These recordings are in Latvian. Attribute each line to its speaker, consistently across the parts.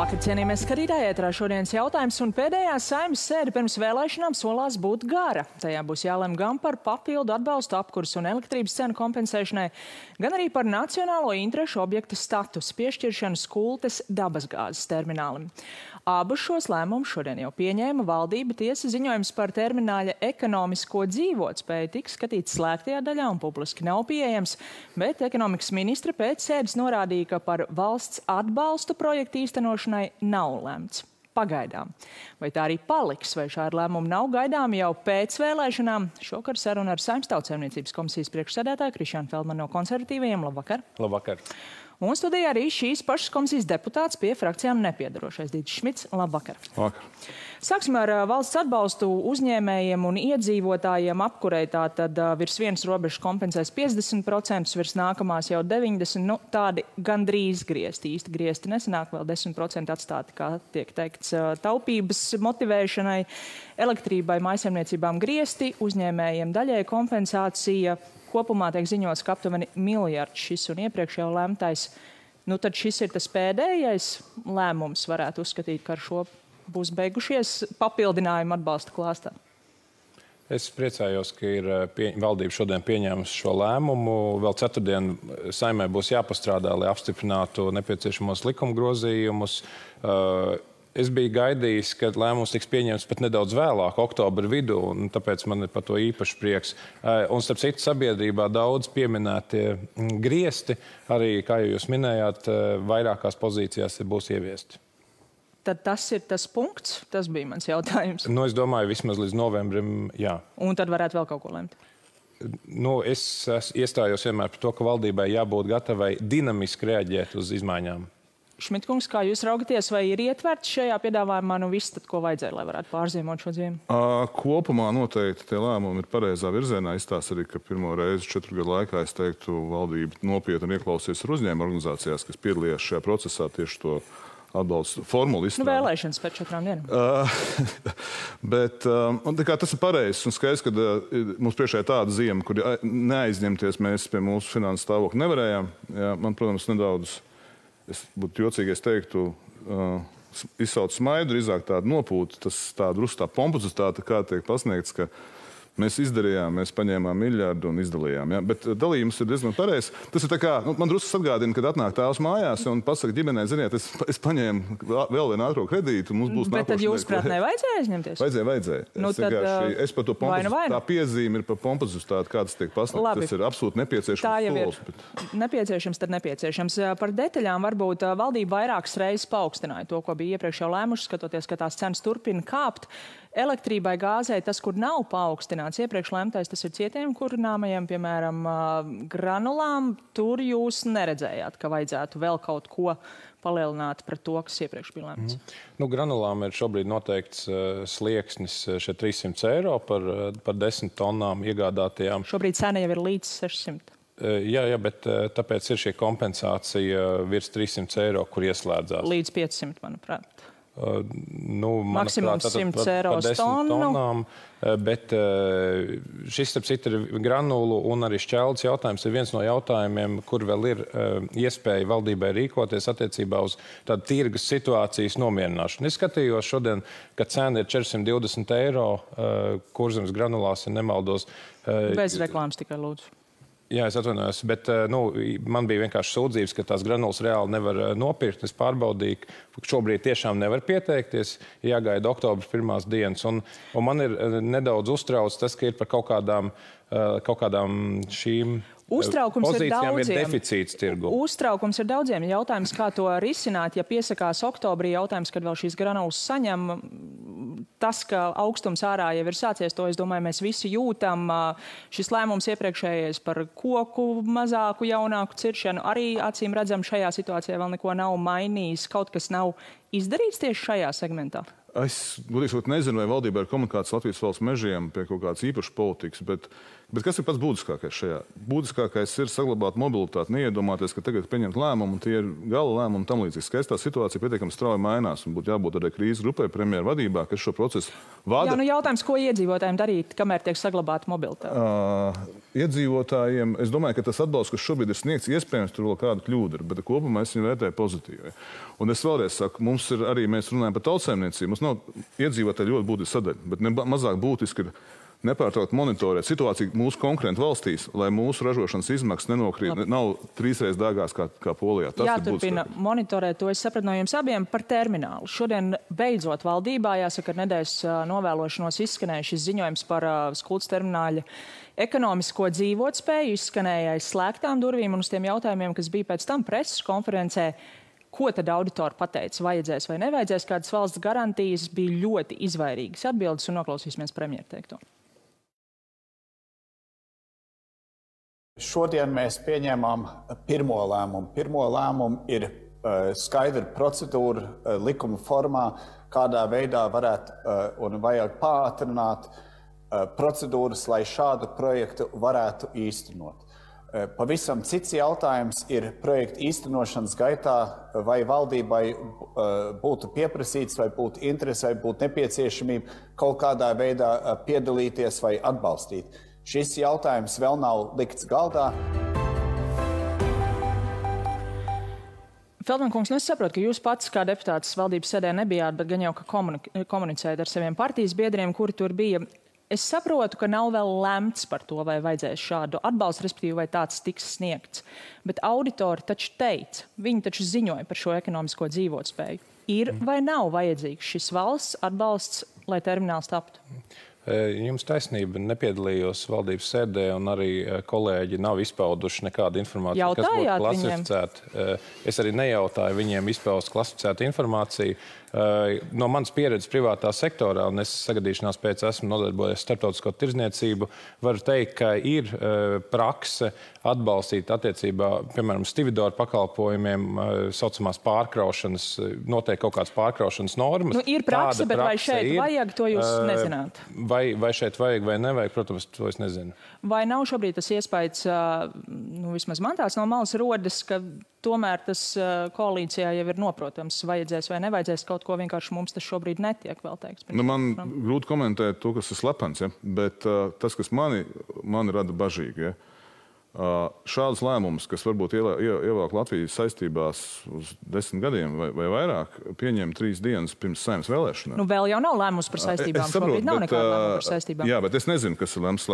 Speaker 1: Labvakar, cienījamies skatītāji, ētrā šodienas jautājums un pēdējā Saeimas sēde pirms vēlēšanām solās būt gara. Tajā būs jālem gan par papildu atbalstu apkurs un elektrības cenu kompensēšanai, gan arī par nacionālo interešu objekta statusu piešķiršanu Skultes dabasgāzes terminālim. Abus šos lēmumus šodien jau pieņēma valdība. Tiesa ziņojums par termināļa ekonomisko dzīvotspēju tiks skatīts slēgtajā daļā un publiski nav pieejams, bet ekonomikas ministre pēc sēdes norādīja, ka par valsts atbalstu projektu īstenošanai nav lemts. Pagaidām. Vai tā arī paliks, vai šādi lēmumi nav gaidāmi jau pēc vēlēšanām? Šokar saruna ar Saeimas Tautsaimniecības komisijas priekšsēdētāju Krišjānu Feldmanu no Konservatīvajiem. Labvakar!
Speaker 2: Labvakar!
Speaker 1: Un studijā arī šīs pašas komisijas deputāts pie frakcijām nepiedarošais Dītis Šmits. Labvakar!
Speaker 2: Labvakar!
Speaker 1: Sāksim ar valsts atbalstu uzņēmējiem un iedzīvotājiem apkurei. Tātad virs vienas robežas kompensēs 50%, virs nākamās jau 90%. Nu, tādi gandrīz griezti. Īsti griezti nesanāk, vēl 10% atstāti, kā tiek teikts, taupības motivēšanai, elektrībai, mājsaimniecībām griezti, uzņēmējiem daļai kompensācija. Kopumā tiek ziņots, ka aptuveni miljards šis un iepriekš jau lemtais. Nu, tad šis ir tas pēdējais lēmums, varētu uzskatīt, ka ar šo būs beigušies papildinājumi atbalsta klāstā.
Speaker 2: Es priecājos, ka ir valdība šodien pieņēmusi šo lēmumu. Vēl ceturtdien Saeimai būs jāpastrādā, lai apstiprinātu nepieciešamos likuma grozījumus. Es biju gaidījis, ka lēmums tiks pieņemts pat nedaudz vēlāk, oktobra vidū, un tāpēc man ir par to īpaši prieks. Un starp citu sabiedrībā daudz pieminētie griezti, arī, kā jūs minējāt, vairākās pozīcijās būs ieviesti.
Speaker 1: Tad tas ir tas punkts? Tas bija mans jautājums.
Speaker 2: Nu, es domāju, vismaz līdz novembrim, jā.
Speaker 1: Un tad varētu vēl kaut ko lemt?
Speaker 2: Nu, es iestājos vienmēr par to, ka valdībai jābūt gatavai dinamiski reaģēt uz izmaiņām.
Speaker 1: Šmitkungs, kā jūs raugaties, vai ir ietverts šajā piedāvājumā, nu viss, tad ko vajadzēja, lai varētu pārziemot šo ziemu?
Speaker 3: Kopumā noteikti tie lēmumi ir pareizā virzienā. Izstāsta arī, ka pirmo reizi 4 gadu laikā, es teiktu, valdība nopietni ieklausījās ar uzņēmumu organizācijās, kas piedalījās šajā procesā tieši to atbalstu formulu izstrādāt.
Speaker 1: Nu, vēlēšanas pēc 4 dienām.
Speaker 3: Bet tas ir pareizs un skaidrs, ka mums priekšā ir tāda ziema, kur neaizņemties mēs pie mūsu finanses stāvokļa nevarējām. Jā, man, protams, nedaudz... Es būtu jocīgi, es teiktu, izsauc smaidu, drīzāk tādu nopūtu, tas tādu rustā pompozitāte, kā tiek pasniegts, ka mēs izdarījām, mēs paņēmām miljardu un izdalījām. Ja? Bet dalījums ir diezgan pareizs. Tas ir tā kā, man drusku atgādina, kad atnāk tēvs mājās un pasaka ģimenei, ziniet, es paņēmu vēl vienu ātro kredītu, mums būs nākošais.
Speaker 1: Bet tad jūs prāt nevajadzēja aizņemties?
Speaker 3: Vajadzēja.
Speaker 1: Nu,
Speaker 3: Es par to pompozitāti, tā piezīme ir par pompozitāti, kā tas tiek pasniegts. Tas ir absolūti nepieciešams.
Speaker 1: Tā jau ir nepieciešams, tad nepieciešams. Par detaļām varbūt valdība vairākas reizes paaugstināja to, ko bija iepriekš jau lēmuši, skatoties, ka tās cenas turpina kāpt. Elektrībai, gāzei, tas, kur nav paaugstināts iepriekš lemtais, tas ir cietiem kurināmajiem, piemēram, granulām. Tur jūs neredzējāt, ka vajadzētu vēl kaut ko palielināt pret to, kas iepriekš bija lemts.
Speaker 2: Nu, granulām ir šobrīd noteikts slieksnis šeit 300 eiro par 10 tonnām iegādātajām.
Speaker 1: Šobrīd cena jau ir līdz 600.
Speaker 2: Jā, bet tāpēc ir šī kompensācija virs 300 eiro, kur ieslēdzās.
Speaker 1: Līdz 500, manuprāt.
Speaker 2: Maksimums
Speaker 1: 100 eiro tonnām,
Speaker 2: bet šis, starp citu, ir granulu un arī šķeldes jautājums. Ir viens no jautājumiem, kur vēl ir iespēja valdībai rīkoties attiecībā uz tādu tirgus situācijas nomierināšanu. Es skatījos šodien, ka cena ir 420 eiro, Kurzemes granulās, ja nemaldos.
Speaker 1: Bez reklāmas tikai lūdzu.
Speaker 2: Jā, es atvainojos, bet man bija vienkārši sūdzības, ka tās granulas reāli nevar nopirkt. Es pārbaudīju, ka šobrīd tiešām nevar pieteikties, jāgaida oktobra 1. dienas. Un man ir nedaudz uztrauc tas, ka ir par kaut kādām šīm pozīcijām ir deficīts tirgu.
Speaker 1: Uztraukums ir daudziem. Jautājums, kā to risināt, ja piesakās oktobrī, jautājums, kad vēl šīs granulas saņem. Tas, ka augstums ārā jau ir sācies, to, es domāju, mēs visi jūtam. Šis lēmums iepriekšējais par koku mazāku, jaunāku ciršanu arī acīm redzam šajā situācijā vēl neko nav mainījis. Kaut kas nav izdarīts tieši šajā segmentā?
Speaker 3: Es, godīgi sakot, nezinu, vai valdībā ir komunikācija Latvijas valsts mežiem pie kaut kādas īpašas politikas, bet Bet kas ir pats būtiskākais šajā? Būtiskākais ir saglabāt mobilitāti, neiedomāties, ka tagad pieņemt lēmumu, un tie ir gala lēmumi un tam līdzīgi. Skaistā situācija pietiekami strauji mainās, un būtu jābūt arī krīzes grupai premjeru vadībā, kas šo procesu vada.
Speaker 1: Jā, jautājums, ko iedzīvotājiem darīt, kamēr tiek saglabāta mobilitāte?
Speaker 3: Iedzīvotājiem, es domāju, ka tas atbalsts, kas šobrīd ir sniegts, iespējams, tur vēl kāda kļūda ir, bet kopumā es viņu vērtēju pozitīvi. Un es vēlreiz saku, mums ir arī, mēs runājam par tautsaimniecību, mums nav iedzīvotāji ļoti būtiska sadaļa, bet mazāk būtiski ir nepārtraukt monitorēt situāciju mūsu konkurentu valstīs, lai mūsu ražošanas izmaksas nav trīsreiz dārgās kā Polijā.
Speaker 1: Jāturpina monitorēt, to es sapratu no jums abiem par terminālu. Šodien beidzot valdībā, jāsaka, ar nedēļas novēlošanos izskanēja šis ziņojums par Skultas termināļa ekonomisko dzīvotspēju, izskanēja aiz slēgtām durvīm, un uz tiem jautājumiem, kas bija pēc tam preses konferencē, ko tad auditori pateica, vajadzēs vai nevajadzēs, kādas valsts garantijas, bija ļoti izvairīgas atbildes, un noklausīsimies premjeru teikto.
Speaker 4: Šodien mēs pieņēmām pirmo lēmumu. Pirmo lēmumu ir skaidra procedūra likuma formā, kādā veidā varētu un vajag pātrināt procedūras, lai šādu projektu varētu īstenot. Pavisam cits jautājums ir projekta īstenošanas gaitā, vai valdībai būtu pieprasīts, vai būtu interese, vai būtu nepieciešamība kaut kādā veidā piedalīties vai atbalstīt. Šis jautājums vēl nav likts galdā.
Speaker 1: Feldman kungs, es saprotu, ka jūs pats kā deputāts valdības sēdē nebijāt, bet gan jau, ka komunicējat ar saviem partijas biedriem, kuri tur bija. Es saprotu, ka nav vēl lemts par to, vai vajadzēs šādu atbalstu, respektīvi, vai tāds tiks sniegts. Bet auditori taču teica, viņi taču ziņoja par šo ekonomisko dzīvotspēju. Ir vai nav vajadzīgs šis valsts atbalsts, lai termināls taptu?
Speaker 2: Jums taisnība, nepiedalījos valdības sēdē, un arī kolēģi nav izpauduši nekādu informāciju, kas būtu klasificēta. Es arī nejautāju viņiem izpaust klasificētu informāciju. No manas pieredzes privātā sektorā, un es sagadīšanās pēc esmu nodarbojies starptautisko tirdzniecību, varu teikt, ka ir prakse atbalstīt attiecībā, piemēram, stividoru pakalpojumiem, saucamās pārkraušanas, noteikti kaut kādas pārkraušanas normas.
Speaker 1: Nu, ir prakse, bet vai šeit vajag, to jūs nezināt?
Speaker 2: Vai šeit vajag vai nevajag, protams, to es nezinu.
Speaker 1: Vai nav šobrīd tas iespējas, vismaz man tāds no malas rodas, ka tomēr tas koalīcijā jau ir noprotams, vajadzēs vai nevajadzēs kaut ko, vienkārši mums tas šobrīd netiek vēl teiks.
Speaker 3: Man grūti komentēt to, kas ir slepens, ja? Bet tas, kas mani rada bažīgi, ja? Šādus lēmumus, kas varbūt ievelk Latvijas saistībās uz 10 gadiem vai vairāk, pieņem 3 dienas pirms Saeimas vēlēšanām.
Speaker 1: Nu, vēl jau nav lēmums par saistībām. Šobrīd nav nekāda lēmuma par saistībām.
Speaker 3: Jā, bet es nezinu, kas ir lemts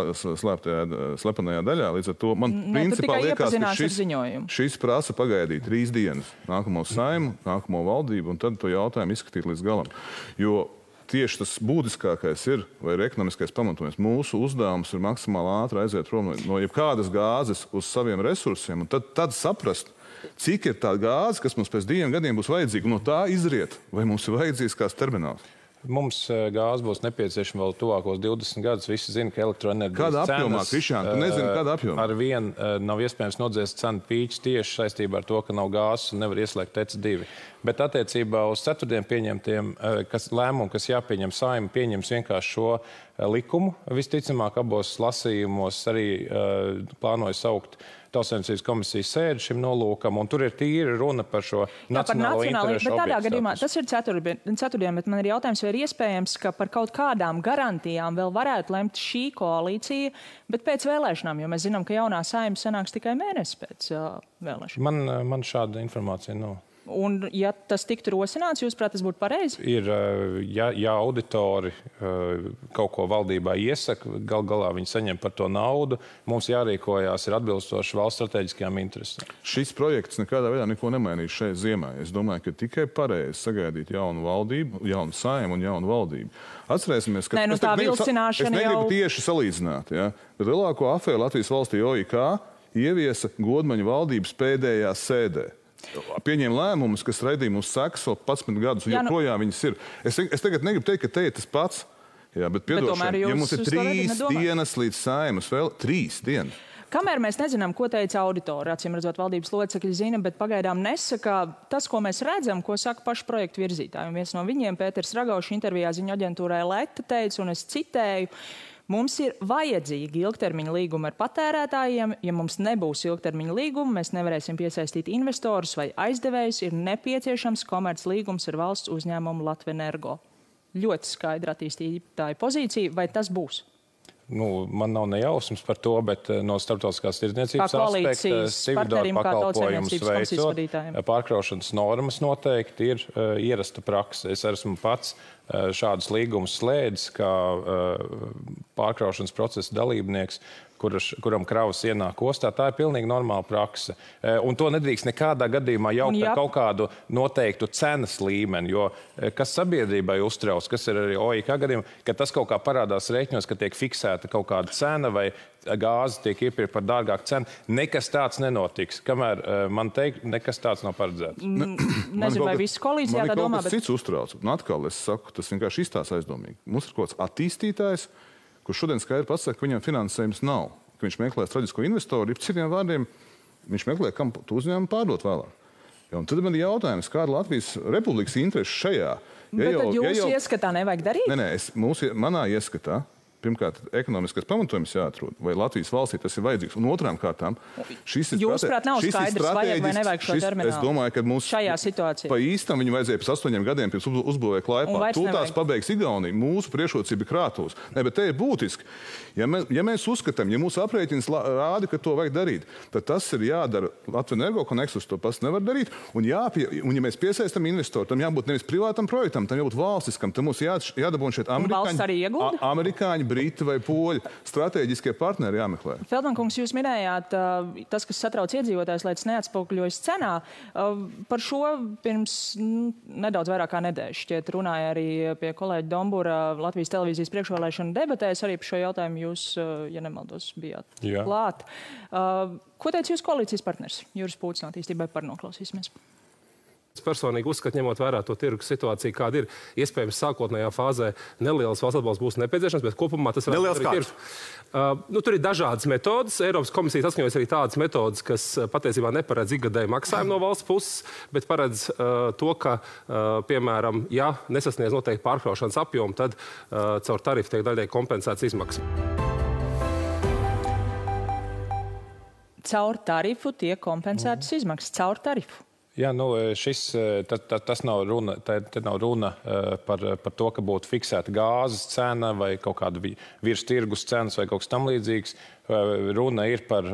Speaker 3: slepenajā daļā. Līdz ar to man principā liekas, ka šis prasa pagaidīt 3 dienas nākamo Saimu, nākamo valdību, un tad to jautājumu izskatīt līdz galam. Jo tieši tas būtiskākais ir, vai ir ekonomiskais pamatojums. Mūsu uzdevums ir maksimāli ātri aiziet prom no jebkādas gāzes uz saviem resursiem, un tad saprast, cik ir tā gāze, kas mums pēc 2 gadiem būs vajadzīga, un no tā izriet, vai mums ir vajadzīgs kāds termināls.
Speaker 2: Mums gāze būs nepieciešama vēl tuvākos 20 gadus. Visi zina, ka elektroenerģijas
Speaker 3: cenas... Kāda apjomā, Krišjān? Tu nezini, kāda apjomā?
Speaker 2: Ar vienu nav iespējams nodzēst cenu pīķis tieši saistībā ar to, ka nav gāzes un nevar ieslēgt EC2. Bet attiecībā uz ceturtdien pieņemtiem lēmumu, kas jāpieņem Saeima, pieņems vienkārši šo likumu. Visticamāk, abos lasījumos arī plānoju saukt Tautsaimniecības komisijas sēdi šim nolūkam, un tur ir tīri runa par šo nacionālo interešu objektu.
Speaker 1: Bet tādā gadījumā, tas ir ceturtdien, bet man ir jautājums, vai ir iespējams, ka par kaut kādām garantijām vēl varētu lemt šī koalīcija, bet pēc vēlēšanām, jo mēs zinām, ka jaunā Saeima sanāks tikai mēnesi pēc vēlēšanām.
Speaker 2: Man šāda informācija nav.
Speaker 1: Un, ja tas tiktu rosināts, jūsuprāt, tas būtu pareizi?
Speaker 2: Ir, ja auditori kaut ko valdībā iesaka, galā viņi saņem par to naudu, mums jārīkojās ir atbilstoši valsts strateģiskajām interesēm.
Speaker 3: Šis projekts nekādā veidā neko nemainīs šeit ziemā. Es domāju, ka tikai pareizi sagaidīt jaunu valdību, jaunu Saeimu un jaunu valdību. Atcerēsimies, ka
Speaker 1: es
Speaker 3: negribu tieši salīdzināt, ja? Bet lielāko afēru Latvijas valstī OIK ieviesa Godmaņa valdības pēdējā sēdē. Pieņēma lēmumus, kas radīja mums sekas vēl 11 gadus, un joprojām viņas ir. Es tagad negribu teikt, ka te ir tas pats, jā, bet piedošana, ja mums ir 3 dienas līdz Saeimas, vēl 3 dienas.
Speaker 1: Kamēr mēs nezinām, ko teica auditori, acīm redzot, valdības locekļi zina, bet pagaidām nesaka tas, ko mēs redzam, ko saka paši projektu virzītāji. Un viens no viņiem, Pēters Ragaušs, intervijā ziņu aģentūrai Leta teica, un es citēju, Mums ir vajadzīgi ilgtermiņa līgumi ar patērētājiem. Ja mums nebūs ilgtermiņa līgumi, mēs nevarēsim piesaistīt investorus vai aizdevējus. Ir nepieciešams komerc līgums ar valsts uzņēmumu Latvenergo. Ļoti skaidra attīstītāja pozīcija. Vai tas būs?
Speaker 2: Man nav nejausmas par to, bet no starptautiskās tirdzniecības aspekta Cividoru pakalpojumus veicot, pārkraušanas normas noteikti ir ierasta prakse. Es esmu pats šādus līgumus slēdzis kā pārkraušanas procesa dalībnieks, kuram kravas ienāk ostā. Tā ir pilnīgi normāla prakse. Un to nedrīkst nekādā gadījumā jaukt ar kaut kādu noteiktu cenas līmeni, jo kas sabiedrībai uztrauc, kas ir arī OIK gadījumā, ka tas kaut kā parādās rēķinos, ka tiek fiksēta kaut kāda cena vai gāze tiek iepirkta par dārgāku cenu. Nekas tāds nenotiks. Kamēr man teikt, nekas tāds nav paredzēts.
Speaker 1: Nezinu, vai visu koalīcijā tā domā,
Speaker 3: bet... cits uztrauc. Un atkal es saku, tas vienkārši izstās aizdomīgi. Mums ir kaut kāds attīstītājs, kurš šodien skaidri pasaka, ka viņam finansējums nav, ka viņš meklē strateģisko investoru, ir citiem vārdiem, viņš meklē, kam tu uzņēmumu pārdot vēlāk. Un tad man ir jautājums, kāda Latvijas Republikas interese šajā?
Speaker 1: Bet tad jūsu ieskatā nevajag darīt?
Speaker 3: Nē, manā ieskatā, pirmkārt, ekonomiskais pamatojums jāatrod, vai Latvijas valstī tas ir vajadzīgs. Un otrām kārtām,
Speaker 1: Jūsuprāt, nav skaidrs, vajag vai nevajag šo terminālu.
Speaker 3: Es domāju, ka mums
Speaker 1: šajā situācijā
Speaker 3: pa īstam viņu vajadzēja pēc 8 gadiem pirms uzbūvēja Klaipā. Tūltās pabeigs Igaunija, mūsu priekšrocība krātos. Ne, bet te ir būtiski. Ja mēs uzskatām, ja mūsu aprēķins rāda, ka to vajag darīt, tad tas ir jādara Latvenergo, ka Nexus to pats nevar darīt. Un ja mēs piesaistam investoru, tam jābūt nevis privātam projektam, tam jābūt valstiskam. Tam mums jādabūna šeit amerikāņi, briti vai poļi. Stratēģiskie partneri jāmeklē.
Speaker 1: Feldmankungs, jūs minējāt, tas, kas satrauc iedzīvotājs, lai tas neatspoguļojas cenā. Par šo pirms nedaudz vairāk kā nedēļas šķiet runāja arī pie kolēģa Dombura Latvijas televīzijas priekšvēlēšana debatēs. Arī par šo jautājumu jūs, ja nemaldos, bijāt klāt. Ko teica jūs koalīcijas partners Juris Pūtis no Attīstībai par? Noklausīsimies.
Speaker 5: Es personīgi uzskatu, ņemot vērā to tirgus situāciju, kāda ir, iespējams, sākotnējā fāzē nelielas valsts atbalsts būs nepieciešams, bet kopumā tas varētu būt tirgus. Tur ir dažādas metodas. Eiropas komisija saskaņojas arī tādas metodas, kas patiesībā neparedz ikgadēju maksājumu no valsts puses, bet paredz to, ka, piemēram, ja nesasniedz noteikti pārkraušanas apjomu, tad caur tarifu tiek daļai kompensēts izmaksas.
Speaker 1: Caur tarifu tiek kompensētas izmaksas. Caur tarifu.
Speaker 2: Jā, tas nav runa, te nav runa par to, ka būtu fiksēta gāzes cena vai kaut kāda virs tirgus cenas vai kaut kas tam līdzīgs. Runa ir par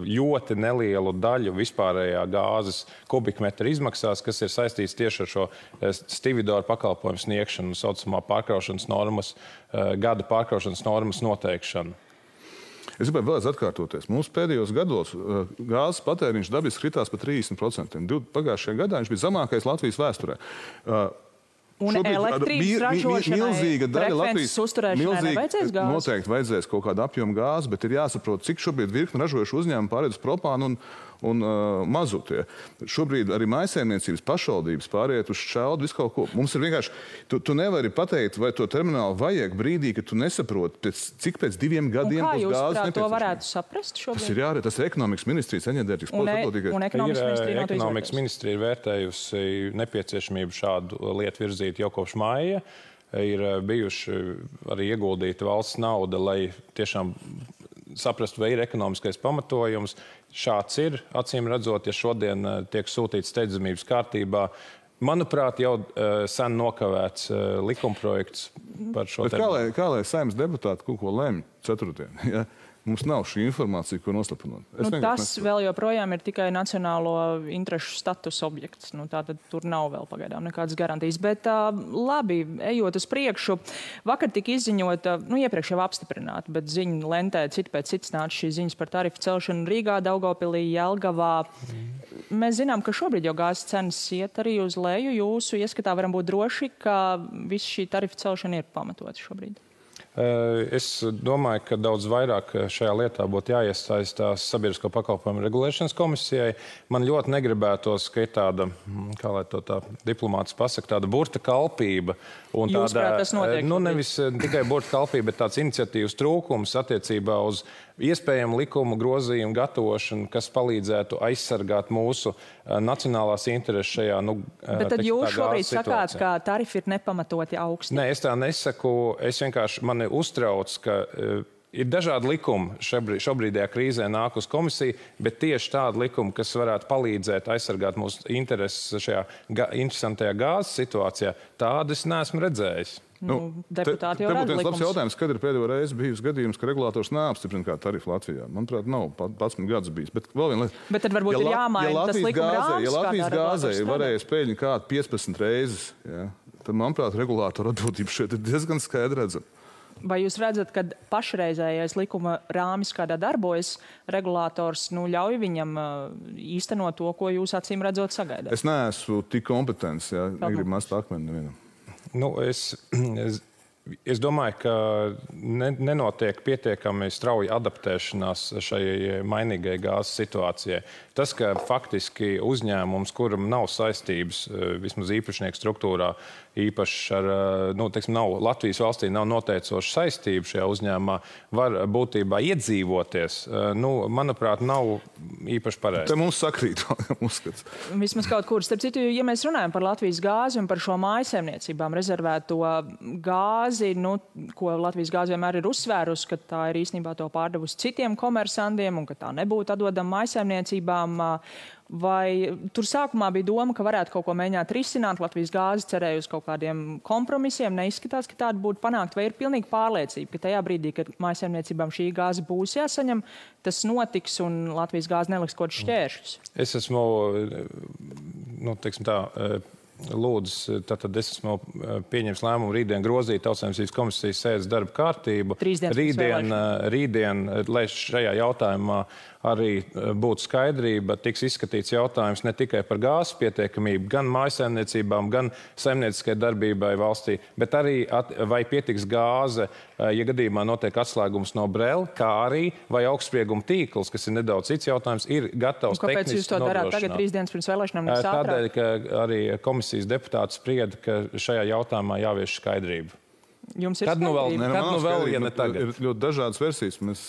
Speaker 2: ļoti nelielu daļu vispārējā gāzes kubikmetra izmaksās, kas ir saistīts tieši ar šo Cividoru pakalpojumu sniegšanu, saucamā pārkraušanas normas, gada pārkraušanas normas noteikšanu.
Speaker 3: Es gribēju vēlreiz atkārtoties. Mūsu pēdējos gados gāzes patēriņš dabiski kritās par 30%. Pagājušajā gadā viņš bija zemākais Latvijas vēsturē.
Speaker 1: Un elektrības ražošanai, frekvences uzturēšanai nevajadzēs gāzi?
Speaker 3: Noteikti vajadzēs kaut kādu apjomu gāzi, bet ir jāsaprot, cik šobrīd virkni ražojuši uzņēmumi pāriet uz propānu un mazutie. Šobrīd arī mājsaimniecības pašvaldības pāriet uz šķeldu, visu kaut ko. Mums ir vienkārši, tu nevari pateikt, vai to terminālu vajag brīdī, ka tu nesaproti, cik pēc 2 gadiem būs gāzes nepieciešama.
Speaker 1: Un kā jūs to varētu saprast šobrīd?
Speaker 3: Tas ir ekonomikas ministrijas enerģētikas
Speaker 2: politika. Ekonomikas ministrija ir vērtējusi nepieciešamību šādu lietu virzīt jau kopš maija. Ir bijuši arī ieguldīta valsts nauda, lai tiešām saprastu, vai ir ekonomiskais pamatojums. Šāds ir, acīm redzot, ja šodien tiek sūtīts steidzamības kārtībā. Manuprāt, jau sen nokavēts likumprojekts par šo
Speaker 3: tēmu. Kā lai Saeimas deputāti kaut ko lemj ceturtdien? Ja? Mums nav šī informācija, ko noslapināt.
Speaker 1: Tas vēl joprojām ir tikai nacionālo interešu status objekts. Tātad tur nav vēl pagaidām nekādas garantijas. Bet labi, ejot uz priekšu, vakar tika izziņota, iepriekš jau apstiprināta, bet ziņu lentē citi pēc cits nāca šīs ziņas par tarifu celšanu Rīgā, Daugavpilī, Jelgavā. Mēs zinām, ka šobrīd jau gāzes cenas iet arī uz leju. Jūsu ieskatā varam būt droši, ka viss šī tarifu celšana ir pamatota šobrīd.
Speaker 2: Es domāju, ka daudz vairāk šajā lietā būtu jāiesaistās Sabiedrisko pakalpojumu regulēšanas komisijai. Man ļoti negribētos, ka ir tāda, kā lai to tā diplomāts pasaka, tāda burta kalpība.
Speaker 1: Jūsuprāt, tas notiek?
Speaker 2: Nevis tikai burta kalpība, bet tāds iniciatīvas trūkums attiecībā uz iespējamu likumu grozījumu gatavošanu, kas palīdzētu aizsargāt mūsu nacionālās intereses šajā,
Speaker 1: Bet tad jūs šobrīd sakāt, ka tarifi ir nepamatoti augsti?
Speaker 2: Nē, es tā nesaku. Es vienkārši mani uztrauc, ka ir dažādi likumi šobrīdējā krīzē nāk uz komisiju, bet tieši tādi likumi, kas varētu palīdzēt aizsargāt mūsu intereses šajā interesantajā gāzes situācijā, tādas neesmu redzējis.
Speaker 1: Deputāti jau rada
Speaker 3: likums. Labs jautājums, kad ir pēdējo reizi bijis gadījums, ka regulators neapstiprina kā tarifu Latvijā. Manuprāt, nav 11 gadus bijis. Bet
Speaker 1: tad varbūt ir jāmaina tas likuma rāms.
Speaker 3: Ja Latvijas gāzē ir varējis pēļņi kādu 15 reizes, tad, manuprāt, regulātora atbildība šeit ir diezgan skaidri redzama.
Speaker 1: Vai jūs redzat, ka pašreizējais likuma rāmis, kādā darbojas, regulators ļauj viņam īstenot to, ko jūs acīm redzot sagaidāt?
Speaker 3: Es neesmu tik kompetents, negribu mest akmeni nevienam.
Speaker 2: Es domāju, ka nenotiek pietiekami strauja adaptēšanās šai mainīgai gāzes situācijai. Tas, ka faktiski uzņēmums, kuram nav saistības, vismaz īpašnieku struktūrā, īpaši ar, nav Latvijas valstī nav noteicoša saistība šajā uzņēmumā, var būtībā iedzīvoties, manuprāt, nav īpaši pareizi.
Speaker 3: Te mums sakrīt, uzskats.
Speaker 1: Vismaz kaut kur. Starp citu, ja mēs runājam par Latvijas gāzi un par šo mājsaimniecībām rezervēto gāzi, ko Latvijas gāze vienmēr ir uzsvērusi, ka tā ir īstenībā to pārdevusi citiem komersantiem un ka tā nebūtu atdodama mājsaimniecībām. Vai tur sākumā bija doma, ka varētu kaut ko mēģināt risināt? Latvijas gāze cerēja uz kaut kādiem kompromisiem. Neizskatās, ka tāda būtu panākt. Vai ir pilnīgi pārliecība, ka tajā brīdī, kad mājsaimniecībām šī gāze būs jāsaņem, tas notiks un Latvijas gāze neliks kaut kādus šķēršļus?
Speaker 2: Es esmu, lūdzu, tad es esmu pieņems lēmumu rītdien grozīt Tautsaimniecības komisijas sēdes darba kārtību. Rītdien, lai šajā jautājumā arī būtu skaidrība, tiks izskatīts jautājums ne tikai par gāzes pietiekamību, gan mājsaimniecībām, gan saimnieciskai darbībai valstī, bet arī vai pietiks gāze, ja gadījumā notiek atslēgums no Brela, kā arī vai augstsprieguma tīkls, kas ir nedaudz cits jautājums, ir gatavs tehniski nodrošināt.
Speaker 1: Kāpēc jūs to darāt tagad 3 dienas pirms vēlēšanām?
Speaker 2: Tādēļ, ka arī komisijas deputāti sprieda, ka šajā jautājumā jāvieš skaidrība.
Speaker 1: Jums ir
Speaker 2: vēl, ja ne tagad?
Speaker 3: Ir ļoti dažādas versijas. Mēs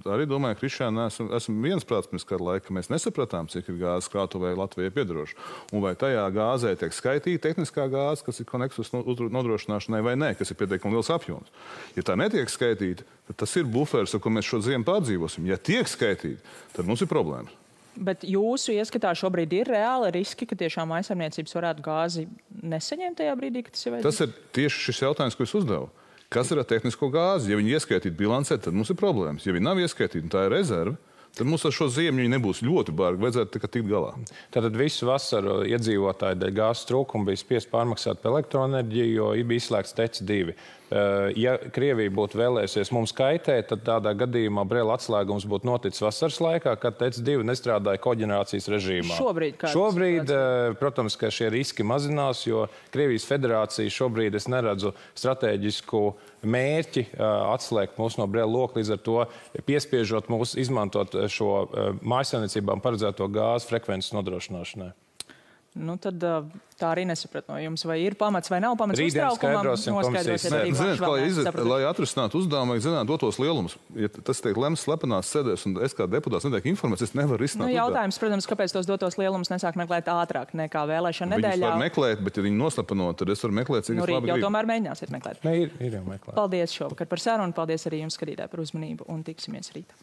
Speaker 3: arī domājam, Krišāna, esam viensprāts pirms kāda laika, ka mēs nesapratām, cik ir gāzes krātuvē Latvijai piedaroša. Un vai tajā gāzē tiek skaitīta tehniskā gāze, kas ir koneksus nodrošināšanai vai nē, kas ir pietiekami liels apjoms. Ja tā netiek skaitīta, tad tas ir buferis, ar ko mēs šo ziemu pārdzīvosim. Ja tiek skaitīta, tad mums ir problēmas.
Speaker 1: Bet jūsu ieskatā šobrīd ir reāli riski, ka tiešām mājsaimniecības varētu gāzi nesaņemt tajā brīdī, kad tas ir vajadzīgs?
Speaker 3: Tas ir tieši šis jautājums, ko es uzdevu. Kas ir ar tehnisko gāzi? Ja viņi ieskaitītu bilancē, tad mums ir problēmas. Ja viņi nav ieskaitīti, tā ir rezerve, tad mums ar šo ziemu nebūs ļoti bargi, vajadzētu tikai tikt galā.
Speaker 2: Tātad visu vasaru iedzīvotāji dēļ gāzes trūkuma bija spiest pārmaksāt par elektroenerģiju, jo bija izslēgts TEC 2. Ja Krievija būtu vēlējusies mums kaitēt, tad tādā gadījumā Brela atslēgums būtu noticis vasaras laikā, kad TEC 2 nestrādāja koģenerācijas režīmā. Šobrīd, protams, ka šie riski mazinās, jo Krievijas federācija šobrīd es neredzu strateģisku mērķi atslēgt mūs no Brela loka, līdz ar to piespiežot mūs izmantot šo mājsaimniecībām paredzēto gāzes frekvences nodrošināšanai.
Speaker 1: Tad tā arī nesaprat no jums, vai ir pamats vai nav pamats uztraukumam.
Speaker 3: Lai atrisinātu uzdevumu, vajag zināt dotos lielumus. Ja tas tiek lemts slepenās sēdēs, un es kā deputāts netiek informēts, es nevaru risināt.
Speaker 1: Jautājums, protams, kāpēc tos dotos lielumus nesāk meklēt ātrāk nekā vēlēšana nedēļā?
Speaker 3: Viņus var meklēt, bet ja viņi noslapenot, tad es varu meklēt, cik es labi gribu.
Speaker 1: Jau tomēr mēģināsiet meklēt.
Speaker 2: Ir jau meklēt.
Speaker 1: Paldies šovakar par sarunu, paldies arī jums, skatītāji, par uzmanību, un tiksimies rīt.